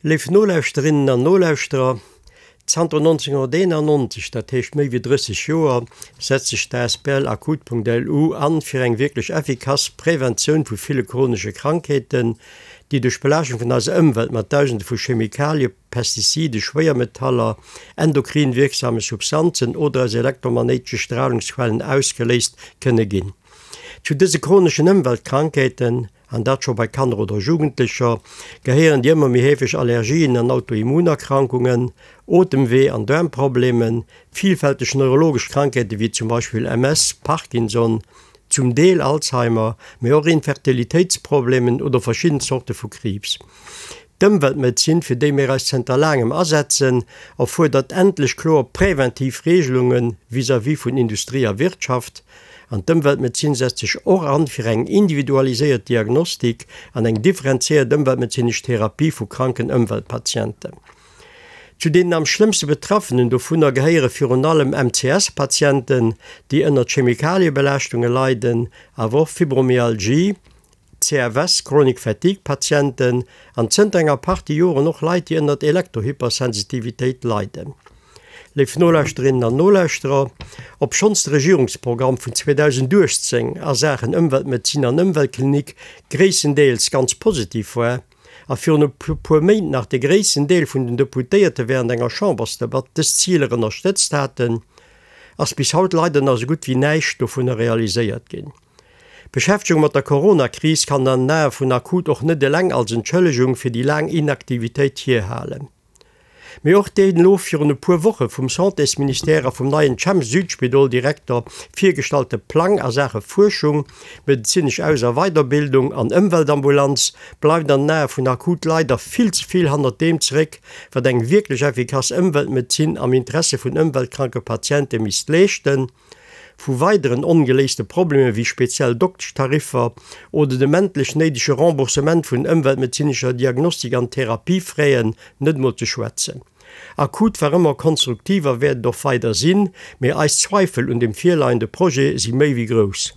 Léif Nolauschterinnen an Nolauschterer, zanter 1991, dat heescht méi wéi 30 Joer, setzt sech d'asbl Akut.lu an fir eng wierklech effikass Preventioun vu ville chronesche Krankheeten, déi duerch d'Belaaschtung vun eiser Ëmwelt mat Dausende vu Chemikalie, Pestizide, Schwéiermetaller, endokrin wierksame Substanzen oder aus elektromagnéitesche Stralungsquellen ausgeléist kënne ginn. Zu dëse chroneschen Ëmweltkrankheeten an dat scho bei Kanner oder Jugendlecher, gehéieren déi ëmmer méi heefeg Allergien an Autoimmunerkrankungen, Otemwee an Daarmproblemen, vielfälteg neurologesch Krankheete wéi zum Beispill MS, Parkinson, zum Deel Alzheimer, mee och Infertilitéitsproblemen oder verschidden Zorte vu Kriibs. D'Ëmweltmedezin, fir déi mir eis zënter laangem asetzen, erfuerdert endlech kloer präventiv Regelunge vis-à-vis vun Industrie a Wirtschaft. An d'Ëmweltmedezin setzt sech och an fir eng individualiséiert Diagnostik an eng differenziéiert ëmweltmedezinesch Therapie vu kranken Ëmweltpatienten. Zu deenen am schlëmmste Betraffenen dovunner gehéiere virun allem MCS-Patienten, déi ënnert Chemikaliebelaaschtunge leiden, awer och Fibromyalgie, CFS, Chronic Fatigue Patienten, an zënter enger Partie Joren och Leit, déi ënnert Elektrohypersensitivitéit leiden. Léif Nolauschterinnen an Nolauschterer, obschonns de Regierungsprogramm vun 2018 a Saachen Ëmweltmedezin an Ëmweltklinik gréisstendeels ganz positiv war, a virun e puer Méint nach de gréissten Deel vun den Deputéierte während enger Chambersdebatt dës Ziler ënnerstëtzt haten, ass bis haut leider nach esou gutt wéi näischt dovunner realiséiert ginn. D'Beschäftegung mat der Corona-Kris kann an den Ae vun Akut och net eleng als Entschëllegung fir déi laang Inaktivitéit hierhalen. Mee och deen elo virun e puer Woche vum Santésministère a vum neien Chem-Südspidol-Direkter virgestallte Plang a Saache Fuerschung, medezinesch Aus a Weiderbildung an Ëmweltambulanz bleift an den Ae vun Akut leider vill ze vill hannert deem zeréck, wat eng wierklech effikass Ëmweltmedezin am Interesse vun ëmweltkranke Patiente misst leeschten. Vu weideren ongeléiste Problemer wéi speziell Dokteschtariffer oder dem endlech néidege Remboursement vun ëmweltmedezinescher Diagnostik an Therapiefraisen net mol ze schwätzen. Akut war ëmmer konstruktiv a wäert et och weider sinn, mee eis Zweifel un dem virleiende Projet si méi wéi grouss.